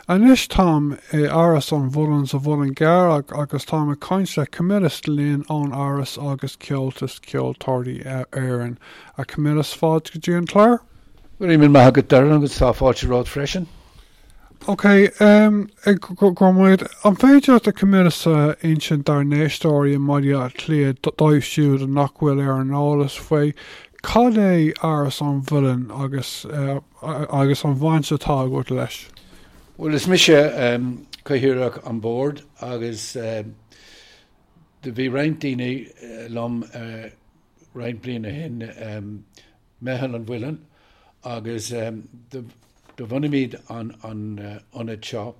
Anois táim i Áras an Mhuilinn sa Mhuileann gCearr agus táim ag caint le Camillus Lynn ón Áras agus Comhaltas Ceoltóirí Éireann. A Camillus, fáilte go dtí an clár. Go raibh míle maith agat Darren agus tá fáilte romhat freisin. Ok, go raibh maith agat. An féidir leat a Camillus a insint dár n-éisteoirí i mBaile Átha Cliath, dóibh siúd nach bhfuil ar an eolas faoi, cad é Áras an Mhuilinn agus agus an bhaint atá agat leis? Bhuel, is mise Cathaoirleach an Bhoird agus do bhí roinnt daoine liom roinnt bliain ó shin, Meitheal an Mhuilinn agus do bhunaímid an ionad seo.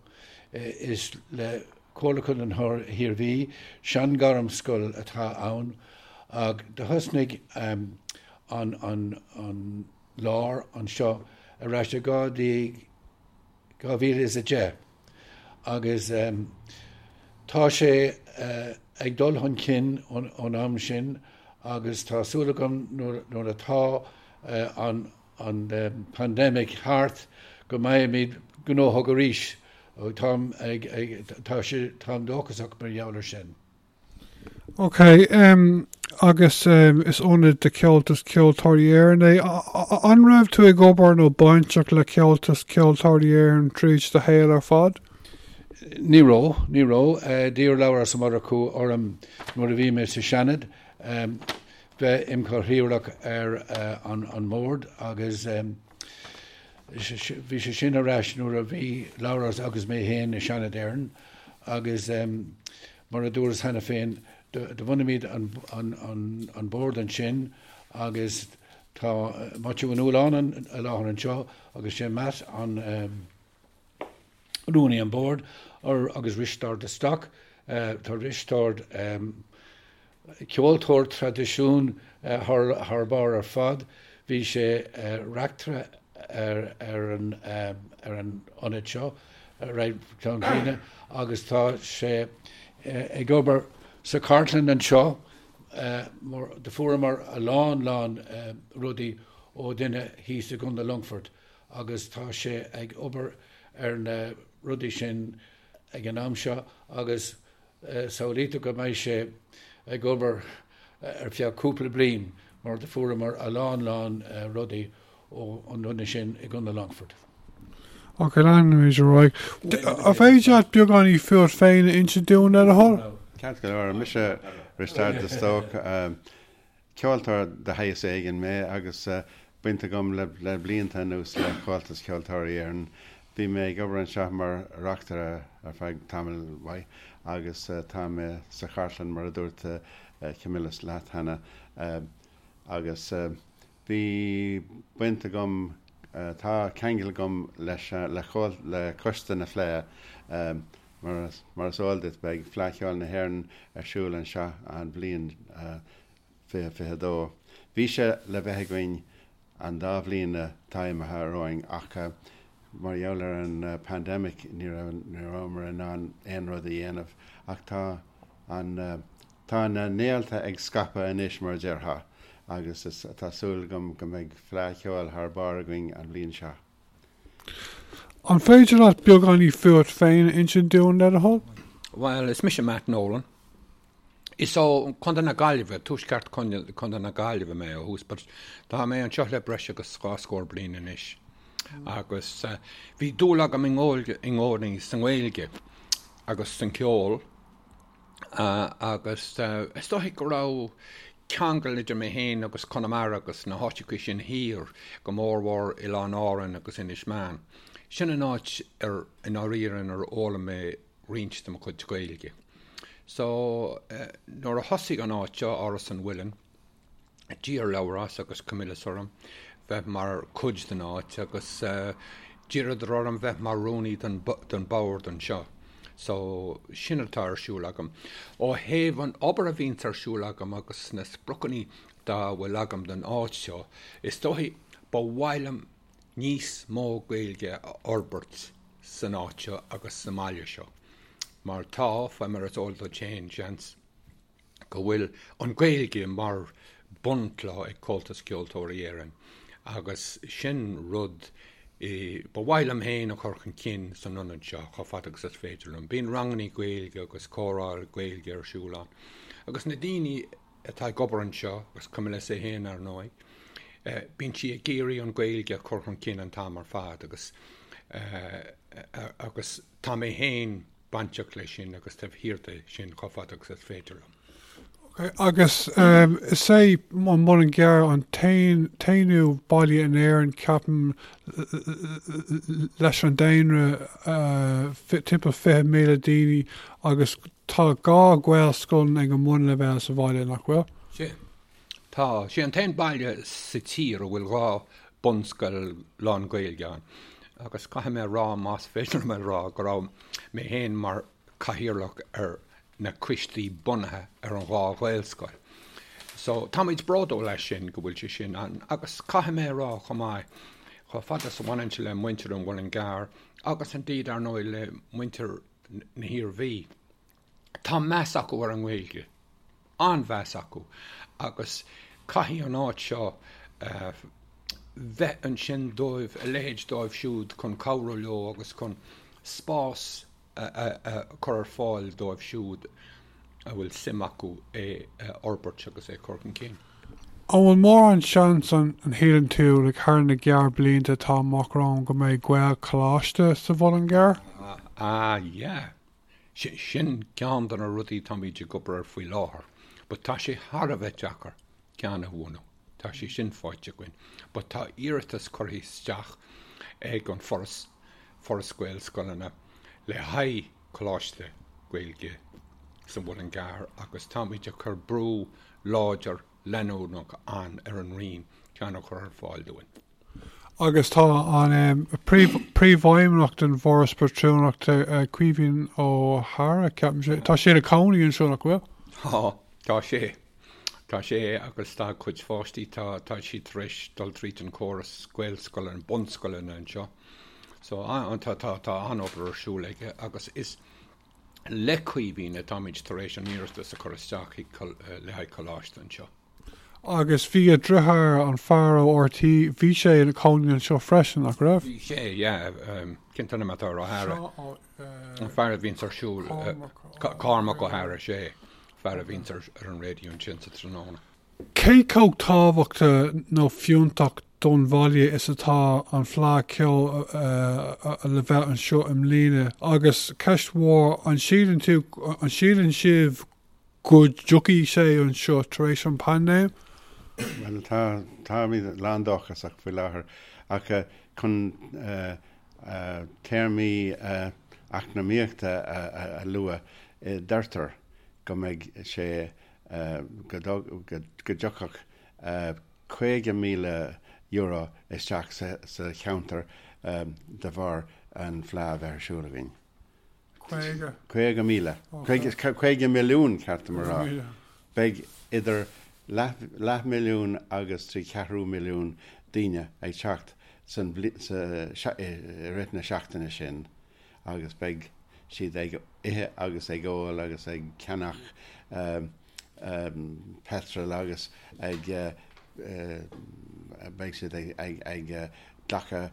Is le Comhairle Contae an hIarmhí, sean-ghairmscoil atá ann ach do thosnaigh an lár anseo ar ais i 2010 agus tá sé ag dul chun cinn ón am sin agus tá súil agam nuair atá an pandemic thart go mbeimid gnóthach arís. Táim ag, tá sé, táim dóchasach mar gheall ar sin. Ok, agus is ionad de Chomhaltas Ceoltóirí Éireann é. An raibh tú ag obair nó bainteach le Comhaltas Ceoltóirí Éireann tríd do shaol ar fad? Ní raibh, ní raibh. D'iarr Labhrás Ó Murchú orm nuair a bhí mé sa Seanad bheith im chathaoirleach ar an mbord agus bhí sé sin ar ais nuair a bhí Labhrás agus mé féin i Seanad Éireann agus Mar a dúras cheana féin, do bhunaímid an bord ansin agus tá Maitiú Ó Nualláin i láthair anseo agus sé Matt an rúnaí an bord agus Risteárd de Stoc. Tá Risteárd ceoltóir traidisiún thar barr ar fad. Bhí sé reachtaire ar an ionad seo roinnt bliana agus tá sé ag obair sa chartlann anseo mar do fuaireamar a lán lán rudaí ó duine thíos i gContae Longfoirt agus tá sé ag obair ar na rudaí sin ag an am seo agus Samhlaítear go mbeidh sé ag obair ar feadh cúpla bliain mar do fuaireamar a lán lán rudaí ó an duine sin i gContae Longfoirt. Ok, leanfaimid ar aghaidh. An féidir leat beagáinín fút féin a inse dúinn, le do thoil? Ceart go leor. Mise Risteárd de Stóc. Ceoltóir de shaghas éigin mé agus baint agam le blianta anuas le Comhaltas Ceoltóirí Éireann. Bhí mé ag obair anseo mar reachtaire ar feadh tamaill mhaith agus tá mé sa chartlann mar a dúirt Camillus leat cheana agus bhí baint agam, tá ceangal agam leis le Coiste na Fleidhe. Mar is eol duit, beidh Fleadh Cheoil na hÉireann ar siúl anseo an bhliain 2022. Bhí sé le bheith againn an dá bhliain atá imithe romhainn ach mar gheall ar an pandemic ní rabhamar in ann aon rud a dhéanamh ach tá an tá na néalta ag scaipeadh anois mar a déarfá agus tá súil agam go mbeidh Fleadh Cheoil thar barr againn an bhliain seo. An féidir leat beagáinín fút féin a insint dúinn, le do thoil? Bhuel, is mise Matt Nolan. Is ó Chontae na Gaillimhe, tuaisceart Chontae na Gaillimhe mé ó thús, but tá mé anseo le breis agus dhá scór bliain anois. Agus bhí dúil agam i gcónaí sa nGaeilge agus san cheol. Agus is dóichí go raibh ceangal idir mé féin agus Conamara agus na háiteacha sin thiar, go mórmhór Oileáin Árann agus Inis Meáin. Sin an áit ar, i ndáiríre, inar fhoghlaim mé roinnt de mo chuid Gaeilge. So, nuair a thosaigh an áit seo, Áras an Mhuilinn, D'iarr Labhrás agus Camillus orm bheith mar chuid den áit agus d'iarradar orm bheith mar rúnaí don bord anseo. So, sin atá ar siúl agam. Ó thaobh an obair a bhíonns ar siúl agam agus na spriocanna dá bhfuil agam don áit seo, is dóichí ba mhaith liom níos mó Gaeilge a fhorbairt san áit seo agus sa mbaile seo. Mar tá, fé mar is eol duit féin, seans, go bhfuil an Ghaeilge mar bunchloch ag Comhaltas Ceoltóirí Éireann agus sin rud. Ba mhaith liom féin a chur chun cinn san ionad seo chomh fada agus is féidir liom. Bíonn rangannaí Gaeilge agus comhrá Gaeilge ar siúl ann. Agus na daoine atá ag obair anseo, agus Camilla é féin ar ndóigh, bíonn sí ag iarraidh an Ghaeilge a chur chun cinn an t-am ar fad agus agus tá mé féin bainteach leis sin agus taobh thiar de sin chomh fada agus is féidir liom. Ok, agus is é an Muileann gCearr an t-aonú baile in Éirinn, ceapaim, leis an daonra timpeall 20,000 daoine agus tá 2 Ghaelscoil ag an mbunleibhéal sa bhaile, nach bhfuil? Sea, tá. Sé an t-aon baile sa tír a bhfuil 2 bunscoil lán-Ghaeilge ann agus caithfidh mé a rá, más féidir liom a rá, go raibh mé féin mar chathaoirleach ar na coistí bunaithe ar an dhá Ghaelscoil. So, táimid bródúil as sin, go bhfuil sé sin ann. Agus caithfidh mé a rá chomh maith, chomh fada is a bhaineann sé le muintir an Mhuilinn gCearr, agus indeed, ar ndóigh, le muintir na hIarmhí, tá meas acu ar an nGaeilge, an-mheas acu, agus caithfidh an áit seo bheith ansin dóibh, a leithéid dóibh siúd, chun cabhrú leo agus chun spás a chur ar fáil dóibh siúd a bhfuil suim acu é a fhorbairt agus é a chur chun cinn. An bhfuil mórán seans an shíleann tú, like thar na gearrblianta atá amach romhainn go mbeidh Gaelcholáiste sa Mhuileann gCearr? Ah yeah. Sin ceann de na rudaí táimid ag obair air faoi láthair. But tá sé thar a bheith deacair ceann a bhunú. Tá sé sin faighte againn. But tá iarratas curtha isteach ag an Foras, Foras Gaelscoileanna, le haghaidh Coláiste Gaeilge sa Mhuileann gCearr agus táimid ag cur brú láidir leanúnach an ar an Roinn ceann a chur ar fáil dúinn. Agus tá an Príomhfheidhmeannach den bhForas Pátrúnachta, Caoimhín Ó hEadhra, ceapaim, tá sé ina chónaí anseo, nach bhfuil? Tá, tá sé. Tá sé agus tá a chuid pháistí, tá, tá siad tar éis dul tríd an córas Gaelscoileanna, bunscoileanna anseo. So, tá, tá, tá an-obair ar siúl aige agus is le Caoimhín atáimid tar éis an iarratas a chur isteach chuig, le haghaidh coláiste anseo. Agus bhí a dheartháir, an fear ó RTÉ, bhí sé ina chónaí anseo freisin, nach raibh? Bhí sé, yeah. Cén t-ainm atá ar Ó hEadhra? An fear a bhíonns ar siúl, Cormac Ó hEadhra, sé, fear a bhíonns ar an raidió ansin sa tráthnóna. Cé chomh tábhachtach nó fiúntach don bhaile is atá an Fleadh Cheoil le bheith anseo i mbliana? Agus ceist mhór, an síleann tú, an síleann sibh go dtiocfaidh sé anseo tar éis an paindéim? Bhuel, tá, táimid lán-dóchasach faoi láthair ach chun téarmaí eacnamaíochta a lua, deirtear go mbeidh sé, go dtiocfadh €50,000 isteach sa cheantar de bharr an Fleadh a bheith ar siúl againn. 50? 50,000. 50 milliún, ceart dom a rá. Beidh idir leathmhilliún agus 3 cheathrú milliún daoine ag teacht san i rith na seachtaine sin agus beidh siad ag ithe agus ag ól agus ag ceannach peitreal agus ag beidh siad ag glacadh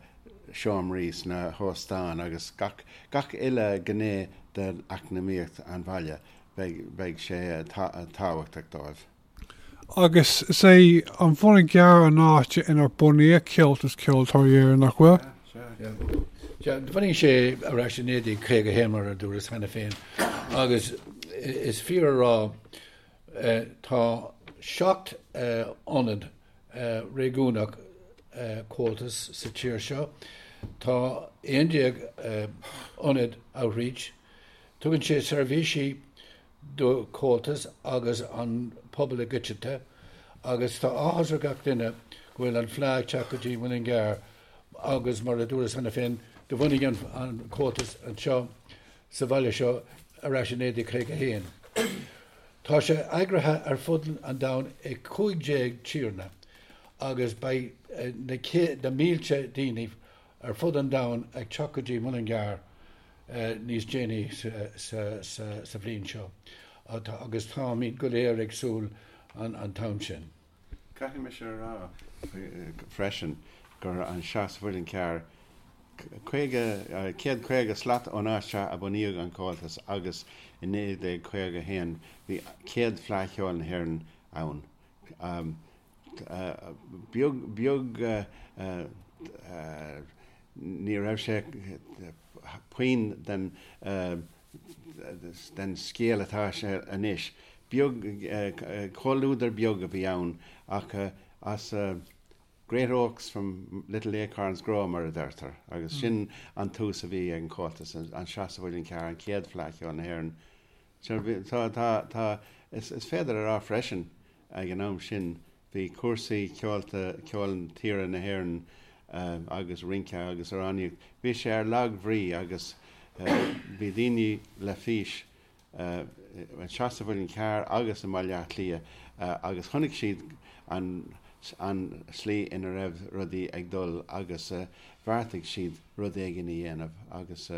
seomraí sna hóstáin agus gach gach uile ghné d'eacnamaíocht an bhaile, beidh beidh sé tábhachtach dóibh. Agus is é an Muileann gCearr an áit inar bunaíodh Comhaltas Ceoltóirí Éireann, nach bhfuil? Sea, sea. Bhunaigh sé ar ais i 1951, mar a dúras cheana féin, agus is fíor a rá, tá 7 ionad réigiúnach Comhaltas sa tír seo, tá 11 ionad outreach, tugann sé seirbhísí do Chomhaltas agus an pobal i gcoitinne agus tá áthas ar gach duine go bhfuil an Fleadh ag teacht go dtí Muileann gCearr agus mar a dúras cheana féin do bhunaigh an Comhaltas anseo sa bhaile seo ar ais i 1951. Tá sé eagraithe ar fud an domhain i 15 tíortha agus beidh na mílte daoine ar fud an domhain ag teacht go dtí Muileann gCearr níos déanaí sa bhliain seo agus táimid go léir ag súil an t-am sin. Caithfidh mise a rá freisin gur anseo sa Mhuileann Cearr. 50, 150 slat ón áit seo a bunaíodh an Comhaltas agus i 1951 bhí céad Fleadh Cheoil na hÉireann ann. Beag, beag, ní raibh sé puinn den, den scéal atá sé anois. Beag, comhluadar beag a bhí ann ach as Great oaks from little acorns grow, mar a deirtear, agus sin an tús a bhí ag an Chomhaltas anseo sa Mhuileann Cearr, an chéad Fleadh Cheoil na hÉireann. Tá, tá, tá, is féidir a rá freisin ag an am sin bhí cúrsaí ceolta, ceol tíre na hÉireann agus rince agus amhránaíocht, bhí sé ar lag-bhrí agus bhí daoine le fís anseo sa Mhuileann Cearr agus i mBaile Átha Cliath agus chonaic siad an an slí ina raibh rudaí ag dul agus bheartaigh siad rud éigin a dhéanamh agus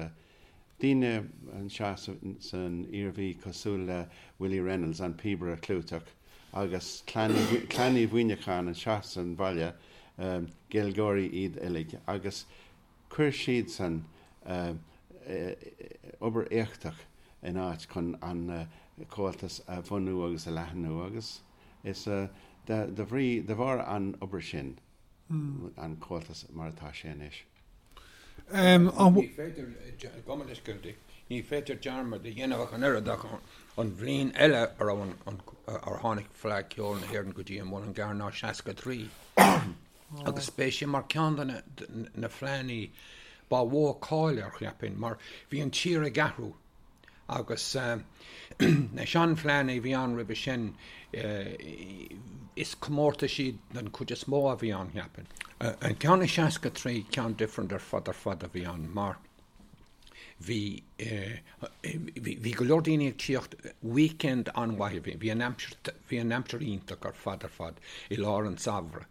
daoine anseo san Iarmhí cosúil le Willie Reynolds, an píobaire clúiteach, agus Clann Uí Mhuimhneacháin anseo san bhaile, Gaeilgeoirí iad uilig agus Chuir siadsan obair éachtach in áit chun an Comhaltas a bhunú agus a leathnú agus is de bhrí, de bharr an obair sin an Comhaltas mar atá sé anois. Ní féidir, gabh mo leithscéal, ní féidir dearmad a dhéanamh ach an oiread ach an bhliain eile a raibh an, ar tháinig Fleadh Cheoil na hÉireann go dtí an Muileann gCearr ná 63. Agus b'é sin mar ceann de na fleánnaí ba mhó cáil air, cheapfainn, mar bhí an tír ag athrú agus na seanfhleánnaí a bhí ann roimhe sin, is comórtaisí den chuid is mó a bhí ann, cheapfainn. An ceann i 63, ceann different ar fad ar fad a bhí ann mar bhí, bhí go leor daoine ag tíocht, weekend an-mhaith a bhí, bhí an aimsir, bhí an aimsir iontach ar fad ar fad i lár an tsamhraidh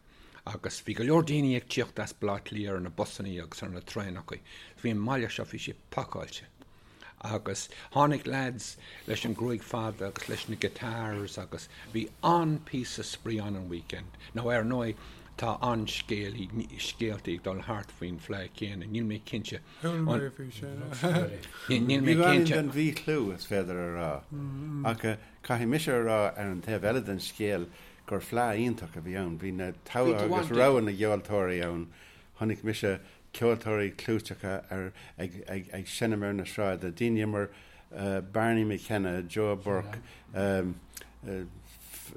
agus bhí go leor daoine ag tíocht as Baile Átha Cliath ar na busannaí agus ar na traenachaí. Bhí an mbaile seo, bhí sé pacáilte agus tháinig lads leis an gruaig fada agus leis na guitars agus bhí an-píosa spraoi ann an weekend. Now ar ndóigh tá an-scéalaí, scéaltaí ag dul thart faoin fleadh céanna, níl mé cinnte Chuala mé faoi sin. Níl mé Beagáinín cinnte. den mhíchlú, is féidir a rá. Ach caithfidh mise a rá ar an taobh eile den scéal gur fleadh iontach a bhí ann. Bhí na togha agus rogha na gceoltóirí ann. Chonaic mise ceoltóirí clúiteacha ar ag ag ag seinm ar na sráide, daoine mar Barney McKenna, Joe Burke,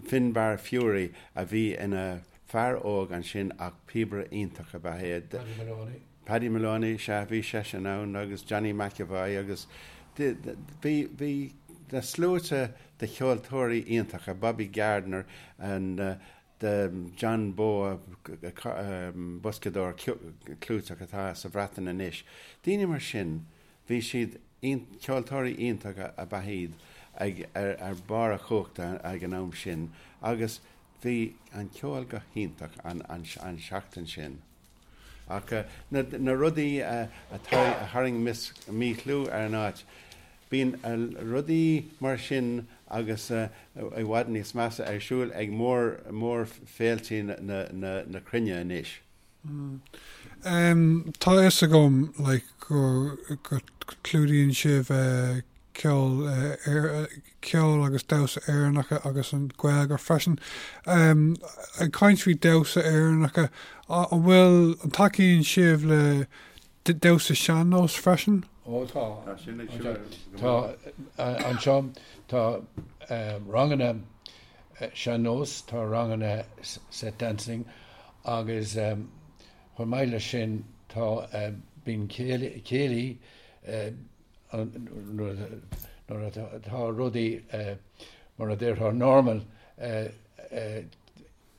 Finbar Furey a bhí ina fear óg ansin ach píobaire iontach ab ea é. Paddy Moloney. Paddy Moloney, sea, bhí seisean ann agus Johnny McEvoy agus bhí, bhí na sluaite de cheoltóirí iontacha, Bobby Gardiner and John Bowe, boscadóir clúiteach atá sa Bhreatain anois. Daoine mar sin, bhí siad, ceoltóirí iontacha ab ea iad ag, ar barr a chumhachta ag an am sin agus bhí an ceol go hiontach an seachtain sin. Ach na rudaí a tharraing míchlú ar an áit, bíonn rudaí mar sin agus i bhfad níos measa ar siúl ag mór-fhéiltí na cruinne anois. Tá a fhios agam like go clúdaíonn sibh ceol, ceol agus damhsa Éireannacha agus an Ghaeilge freisin. Ag caint faoi damhsa Éireannacha, an bhfuil, an tacaíonn sibh le damhsa sean-nós freisin? Ó tá. Tá sin ag siúl. Tá, anseo tá ranganna sean-nós, tá ranganna set dancing agus chomh maith leis sin tá, bíonn céilí, nuair atá rudaí mar a déarfá normal uair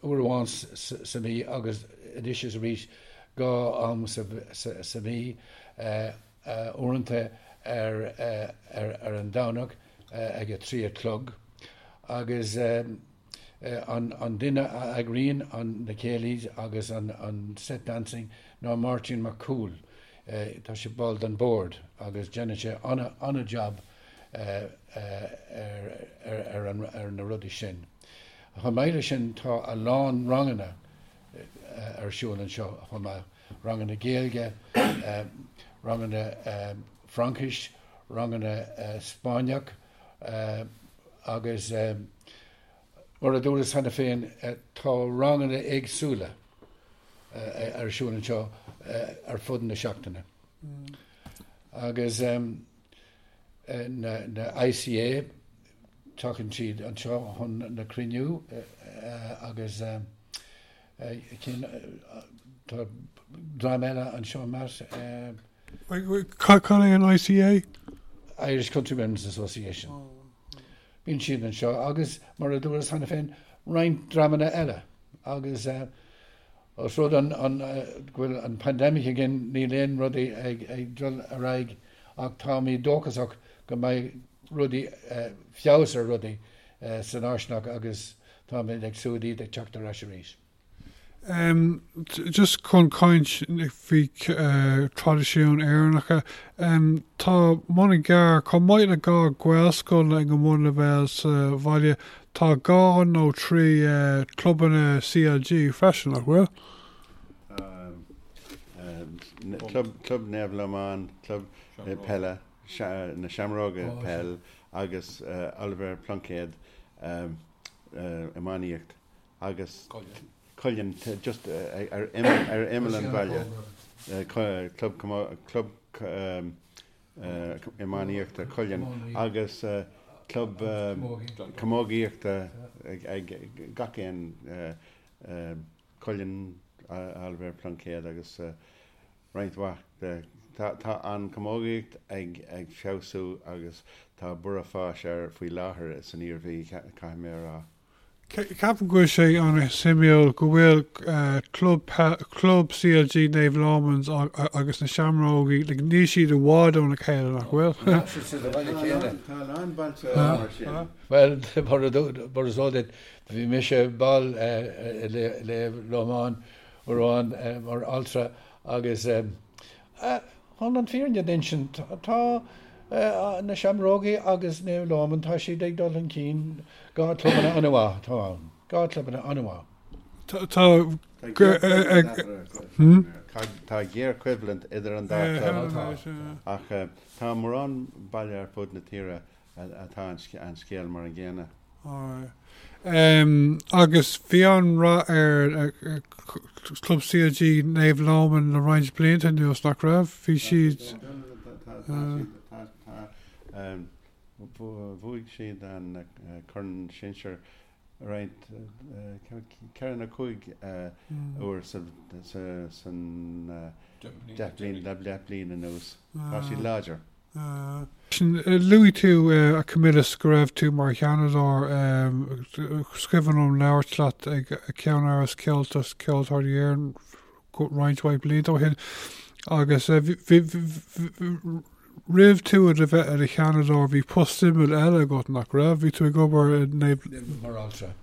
amháin sa mhí agus anois is arís 2 am sa mhí, uaireanta ar an Domhnach ag a 3 a chlog agus an duine a eagraíonn na céilís agus an set dancing ná Máirtín Mac Cumhaill. Tá sé ball den bord agus déanann sé an-jab ar na rudaí sin. Chomh maith leis sin tá a lán ranganna ar siúl anseo chomh maith. ranganna Gaeilge, ranganna Fraincis, ranganna Spáinneach agus mar a dúras cheana féin tá ranganna éagsúla ar siúl anseo ar fud na seachtaine. Agus na ICA, tagann siad anseo chun na cruinniú agus cinn, tá dream eile anseo Matt. Cad é an ICA? Irish Countrymen's Association. Bíonn siad anseo agus, mar a dúras cheana féin, roinnt dreamanna eile agus Os rud an go bhfuil an pandemic againn níl aon rudaí ag dul ar aghaidh ach táimid dóchasach go mbeidh rudaí, feabhas ar rudaí san fháistineach agus táimid ag súil iad ag teacht ar ais arís. Just chun caint faoi traidisiúin Éireannacha, tá Muileann gCearr, chomh maith le 2 Ghaelscoil ag an mbunleibhéal sa bhaile, Tá 2 nó 3 clubanna CLG freisin, nach bhfuil? Tá Club Naomh Lomán, Club Peile, na Seamróga Peil agus Oilibhéar Pluincéad Iománaíocht agus Cuilinn just ar imeall an bhaile, Club Iománaíochta Cuilinn agus Club Camógaíochta ag gach aon Cuilinn, Oilibhéar Pluincéad agus roinnt mhaith de. Tá an chamógaíocht ag feabhsú agus tá borradh fáis air faoi láthair san Iarmhí, caithfidh mé a rá. Ceapaim go bhfuil sé an-suimiúil go bhfuil club club CLG Naomh Lómans agus na Seamrógaí, like, níl siad i bhfad óna chéile, nach bhfuil? Tá siad sa bhaile céanna. Tá a lán bailte mar sin. Bhuel, mar is eol duit, bhí mise ball i Naomh Lomán uair amháin mar altra agus Chun an fírinne d'insint, tá na Seamrógaí agus Naomh Lóman, tá siad ag dul chun cinn, 2 clubanna an-mhaith atá ann, 2 clubanna an-mhaith. Tá Tá géarchoimhlint idir an dá chlub ach tá mórán baile ar fud na tíre atá an scéal mar an gcéanna. Agus bhí an-rath ar Chlub CLG Naomh Lóman le roinnt blianta anuas, nach raibh? Bhí siad. Tá, bhuaigh siad an Corn Sinsir roinnt, 4 nó 5 uair san 10 bliain anuas. Tá siad láidir. Luaigh tú, a Camillus, go raibh tú mar sheanadóir. Is cuimhin liom labhairt leat ag ceannáras Comhaltas Ceoltóirí Éireann roinnt mhaith blianta ó shin agus roimh tú a bheith i do sheanadóir bhí post suimiúil eile agat, nach raibh? Bhí tú ag obair i Naomh. Mar altra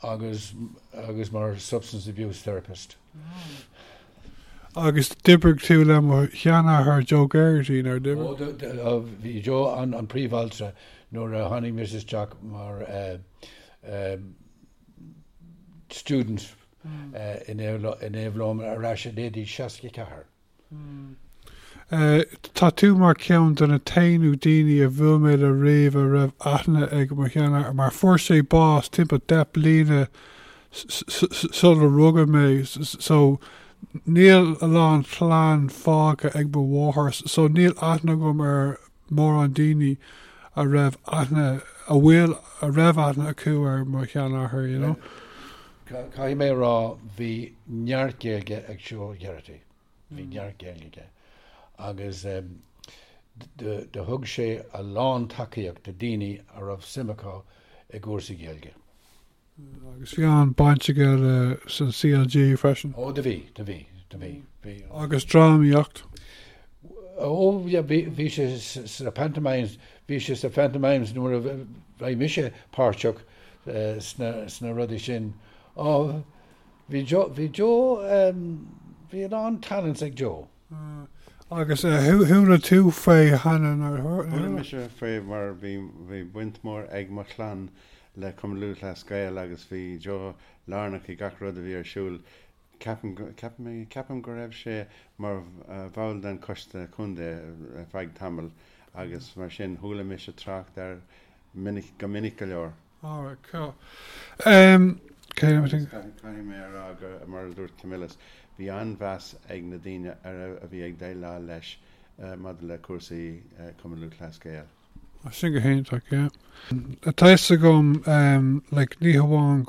agus agus mar substance abuse therapist. Agus d'oibrigh tú le mo sheanathair Joe Geraghty, nár d'oibrigh? Ó, bhí Joe an príomh-altra nuair a tháinig mise isteach mar student i Naomh Lóman ar ais i 1964. Tá tú mar cheann de na t-aonú daoine a bhuail mé le riamh a raibh aithne ag mo sheanathair mar fuair sé bás timpeall 10 bliana sular rugadh mé so níl a lán clann fágtha ag mo mháthair so níl aithne agam ar mórán daoine a raibh aithne a bhfuil a raibh aithne acu ar mo sheanathair you know. Caithfidh mé a rá bhí neart Gaeilge ag Joe Geraghty. Bhí neart Gaeilge aige agus do thug sé a lán tacaíocht do daoine a raibh suim acu i gcúrsaí Gaeilge. Agus bhí an-baint aige le san CLG freisin. Ó do bhí, do bhí, do bhí, bhí. Agus drámaíocht. Ó yeah, bhí, bhí sé sna pantomimes, bhí sé sna pantomimes nuair a bhí mise páirteach sna, sna rudaí sin. Ó, Bhí Joe, bhí Joe, bhí a lán talents ag Joe. Agus chuala tú faoi cheana nár chuala? Chuala mise faoi mar bhí, bhí baint mhór ag mo chlann le Cumann Lúthchleas Gael agus bhí Joe lárnach i gach rud a bhí ar siúl. Ceapaim, ceapaim, ceapaim go raibh sé mar bhall den choiste contae ar feadh tamaill agus mar sin chuala mise trácht air minic, go minic go leor. Alright, cool. Um, okay, let me think. Caithfidh mé a rá gur, mar a dúirt Camillus, bhí an-mheas ag na daoine a raibh, a bhí ag déileáil leis maidir le cúrsaí Cumann Lúthchleas Gael. Sin go hiontach, yeah. Tá fhios agam, like, ní hamháin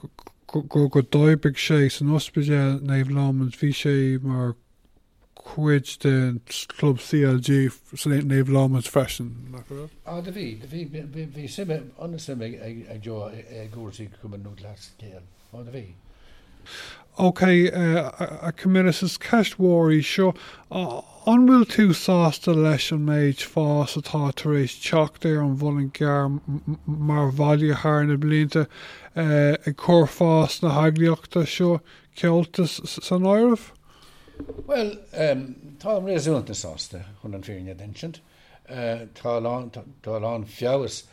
go go d'oibrigh sé san ospidéal Naomh Lómans, bhí sé mar chuid den chlub CLG san Naomh Lómans freisin, nach raibh? Ah, do bhí, do bhí, bhí suim, an-suim ag Joe i gcúrsaí Cumann Lúthchleas Gael. Ó, do bhí. Ok, a Camillus, is ceist mhór í seo. An bhfuil tú sásta leis an méid fás atá tar éis teacht ar an Mhuileann gCearr mar bhaile thar na blianta, ag cur fás na heagraíochta seo, Comhaltas, san áireamh? Bhuel, táim réasúnta sásta, chun an fírinne a d'insint. Tá a lán, tá a lán feabhas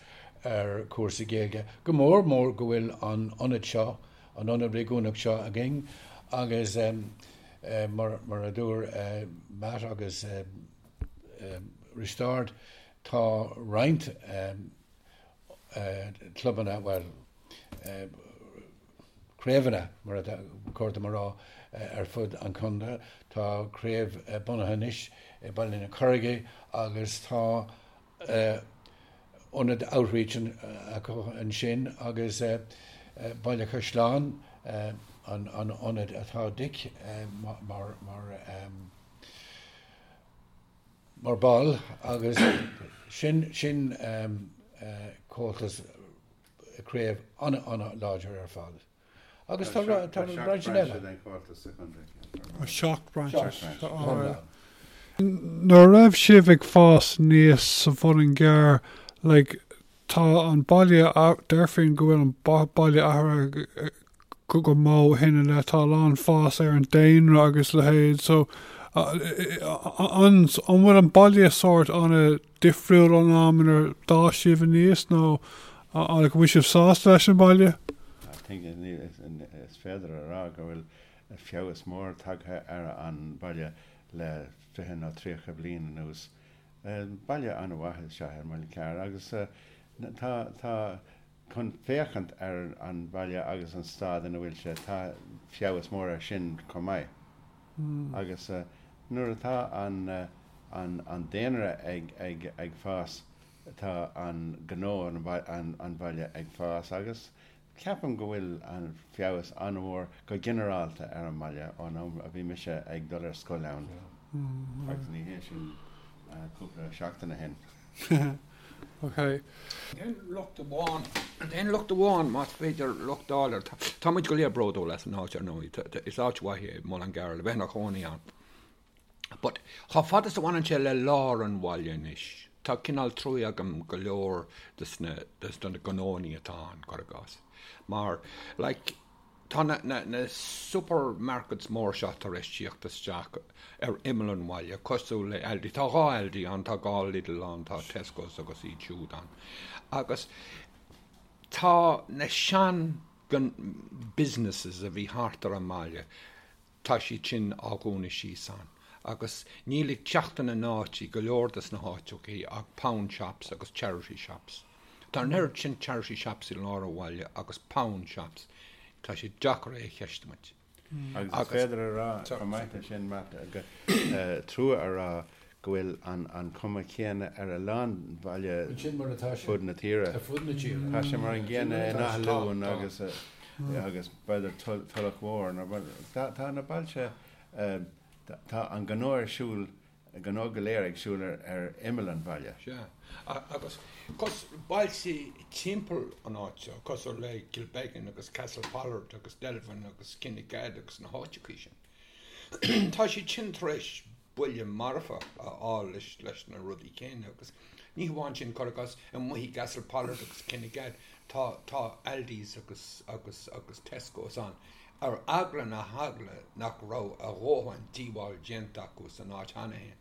ar chúrsaí Gaeilge, go mór mór go bhfuil an ionad seo, an ionad réigiúnach seo againn agus mar, mar a dúir Matt agus Risteárd, tá roinnt clubanna, bhuel, craobhanna, mar atá cóir dom a rá, ar fud an chontae. Tá craobh bunaithe anois i Baile na Carraige agus tá ionad outreach acu ansin agus Baile Chaisleáin an ionad atá Dick mar mar ball agus sin sin Comhaltas craobh an-an-láidir ar fad. Agus tá tá roinnt eile. Seacht brainse. Nuair a raibh sibh ag fás aníos sa Mhuileann gCearr, like, tá an baile, déarfainn go bhfuil an baile athraithe go mór ó shin i leith, tá a lán fás ar an daonra agus leithéid, so an bhfuil an baile sórt an-difriúil ón am inar d'fhás sibh aníos nó an bhfuil sibh sásta leis an baile? I think is féidir a rá go bhfuil feabhas mór tagtha ar an baile le 20 nó 30 bliain anuas. Baile an-mhaith is ea é Muileann Cearr agus tá tá chun féachaint ar an bhaile agus an staid ina bhfuil sé, tá feabhas mór air sin chomh maith. Agus nuair atá an an daonra ag ag ag fás, tá an gnó an bhaile ag fás agus ceapaim go bhfuil an feabhas an-mhór go ginearálta ar an mbaile ón am a bhí mise ag dul ar scoil ann agus ní hé sin cúpla seachtain ó shin. Ok. An t-aon locht amháin, an t-aon locht amháin, más féidir locht a fháil air, tá muid go léir bródúil as an áit, ar ndóigh, is áit mhaith é Muileann gCearr le bheith ina chónaí ann. But chomh fada is a bhaineann sé le lár an bhaile anois, tá cineál trua agam go leor des na, des na gnóannaí atá ann, cuir i gcás. Mar, like, Tá na na supermarkets mór seo tar éis tíocht isteach ar imeall an bhaile, cosúil le Aldi. Tá dhá Aldi ann, tá dhá Lidl ann, tá Tesco's agus iad siúd ann. Agus tá na sean businesses a bhí thart ar an mbaile, tá siad sin á dhúnadh síos ann. Agus níl ag teacht ina n-áit i go leor des na háiteachaí ach pound shops agus charity shops. Tá an oiread sin charity shops i lár an bhaile agus pound shops, tá sé deacair é a cheistiú muid. Agus is féidir a rá chomh maith leis sin, Matt, trua a rá go bhfuil an chuma chéanna ar a lán baile fud na tíre. Tá sé mar an gcéanna in Áth Luain agus agus b'fhéidir Tulach Mhór. Tá na bailte, tá an gnó ar siúl, gnó go léir ag siúl ar imeall an bhaile. Sea. Agus cos, bailte timpeall an áit seo, cosúil le Kilbeggan agus Castlepollard agus Delvin agus Kinnegad agus na háiteachaí sin. Tá siad sin tar éis buille marfach a fháil leis na rudaí céanna agus ní hamháin sin, cuir i gcás, amuigh i gCastlepollard agus Kinnegad tá tá Aldi's agus agus agus Tesco's ann ar eagla na heagla nach raibh a dhóthain díobháil déanta acu san áit cheana féin.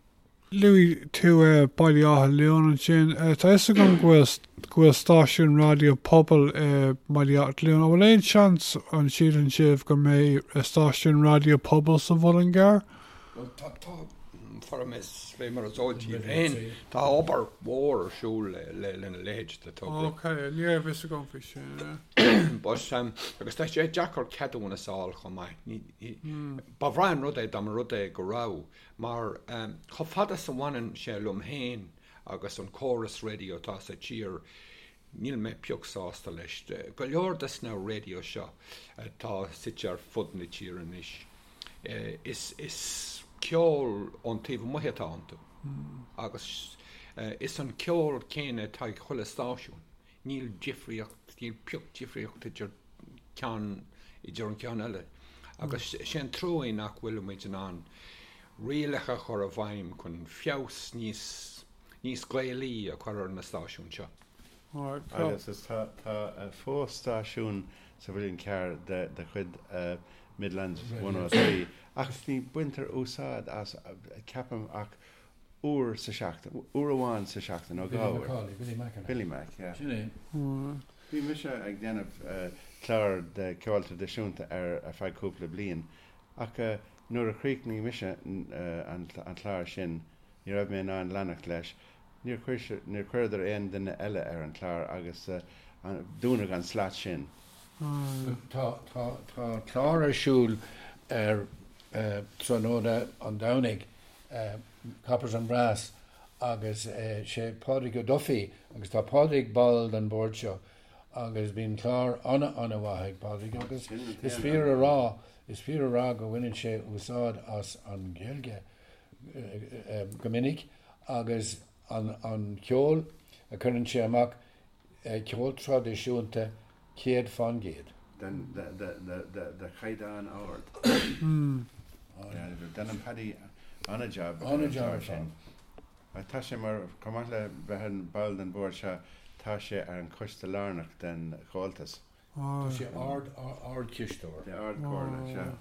Luaigh tú Baile Átha Luain ansin. Tá fhios agam go bhfuil go bhfuil stáisiún raidió pobail i mBaile Átha Luain. An bhfuil aon seans, an síleann sibh, go mbeidh stáisiún raidió pobail sa Mhuileann gCearr? Bhuel, tá, tá, fara mé fé mar is eol daoibh féin, tá obair mhór ar siúl lena leithéid de togra. Ok, ní raibh fhios agam faoi sin. But, agus tá sé deacair ceadúnas a fháil chomh maith. Ní, ní, ba bhreá an rud é dá mba rud é go raibh. Mar chomh fada is a bhaineann sé liom féin agus an córas raidió atá sa tír, níl mé pioc sásta leis. Go leor des na raidió seo atá suite ar fud na tíre anois, is ceol ón taobh amuigh atá iontu. Agus is an ceol céanna atá ag chuile stáisiún. Níl difríocht, níl pioc difríocht idir ceann, idir an ceann eile. Agus sé an trua é nach bhfuil muid in ann rialacha a chur i bhfeidhm chun feabhas níos, níos Gaelaí a chur ar na stáisiúin seo. Agus is tá, tá fós stáisiún sa Mhuileann Cearr de, de chuid Midlands 103 ach ní baintear úsáid as, ceapaim, ach uair sa seachtain, uair amháin sa seachtain, nó 2 uair. Billy Macaulay, Billy Mac an ea? Billy Mac, yeah. Sin é. Bhí mise ag déanamh clár de ceol traidisiúnta ar ar feadh cúpla bliain ach nuair a chríochnaigh mise an clár sin ní raibh mé in ann leanacht leis. Níor chuir níor chuireadar aon duine eile ar an chlár agus dúnadh an slat sin. Tá tá tá clár ar siúl ar tráthnóna an Domhnaigh Coppers and Brass agus sé Pádraig Ó Dufaigh agus tá Pádraig ball den bhord seo agus bíonn clár ana-ana-mhaith ag Pádraig agus is fíor a rá, is fíor a rá go bhaineann sé úsáid as an Ghaeilge go minic agus an ceol a chuireann sé amach Ceol traidisiúnta 100%. De chaighdeán ard. Déanann Paddy an-jab ar an chlár sin. Tá sé mar, chomh maith le bheith ina ball den bhord seo, tá sé ar an choiste lárnach den Chomhaltas. Tá sé ard-chisteoir. De Ard-Chomhairle, sea.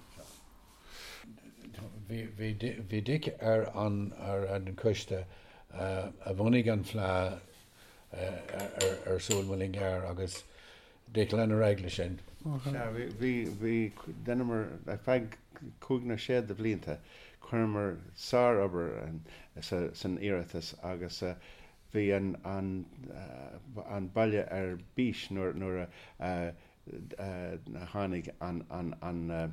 Bhí Dick ar an choiste a bhunaigh an Fleadh ar siúl i Muileann gCearr agus Dick lean ar aghaidh leis sin. Sea, bhí, bhí, dheineamar, ar feadh cúig nó sé de bhlianta, chuireamar sár-obair san iarratas agus bhí an, an, an baile ar bís nuair, nuair a tháinig an, an, an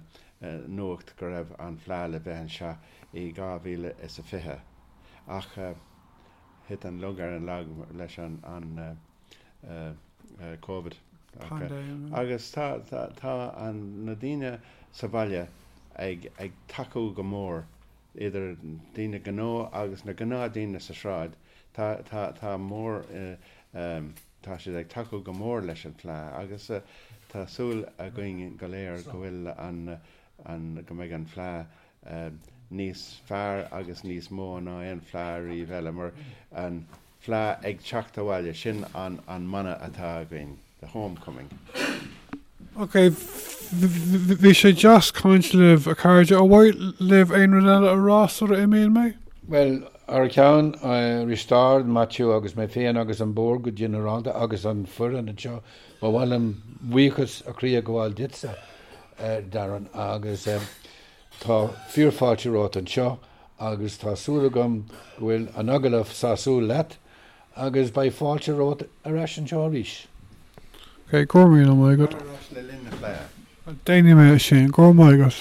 nuacht go raibh an Fleadh le bheith anseo i 2020. Ach. Thit an lug ar an lag leis an Covid. Agus tá tá na daoine sa bhaile ag ag tacú go mór, idir daoine gnó agus na gnáthdaoine sa sráid, tá tá tá mór tá siad ag tacú go mór leis an Fleadh agus tá súil againn go léir go bhfuil an an go mbeidh an Fleadh níos fearr agus níos mó ná aon fleadh riamh eile, mar an fleadh ag teacht abhaile, sin an mana atá againn, the homecoming. Ok, bhí sé deas caint libh, a chairde. Ar mhaith libh aon rud eile a rá sula imíonn mé? Bhuel, thar ceann Risteárd, Maitiú agus mé féin agus an Bord go ginearálta agus an foireann anseo, ba mhaith liom buíochas ó chroí a ghabháil duitse, Darren, agus Tá fíorfháilte romhat anseo agus tá súil agam go bhfuil an agallamh sásúil leat agus beidh fáilte romhat ar ais anseo arís. Ok, go raibh míle maith agat. Tar ar ais le linn na Fleidhe. Déanfaidh mé sin, go raibh maith agat.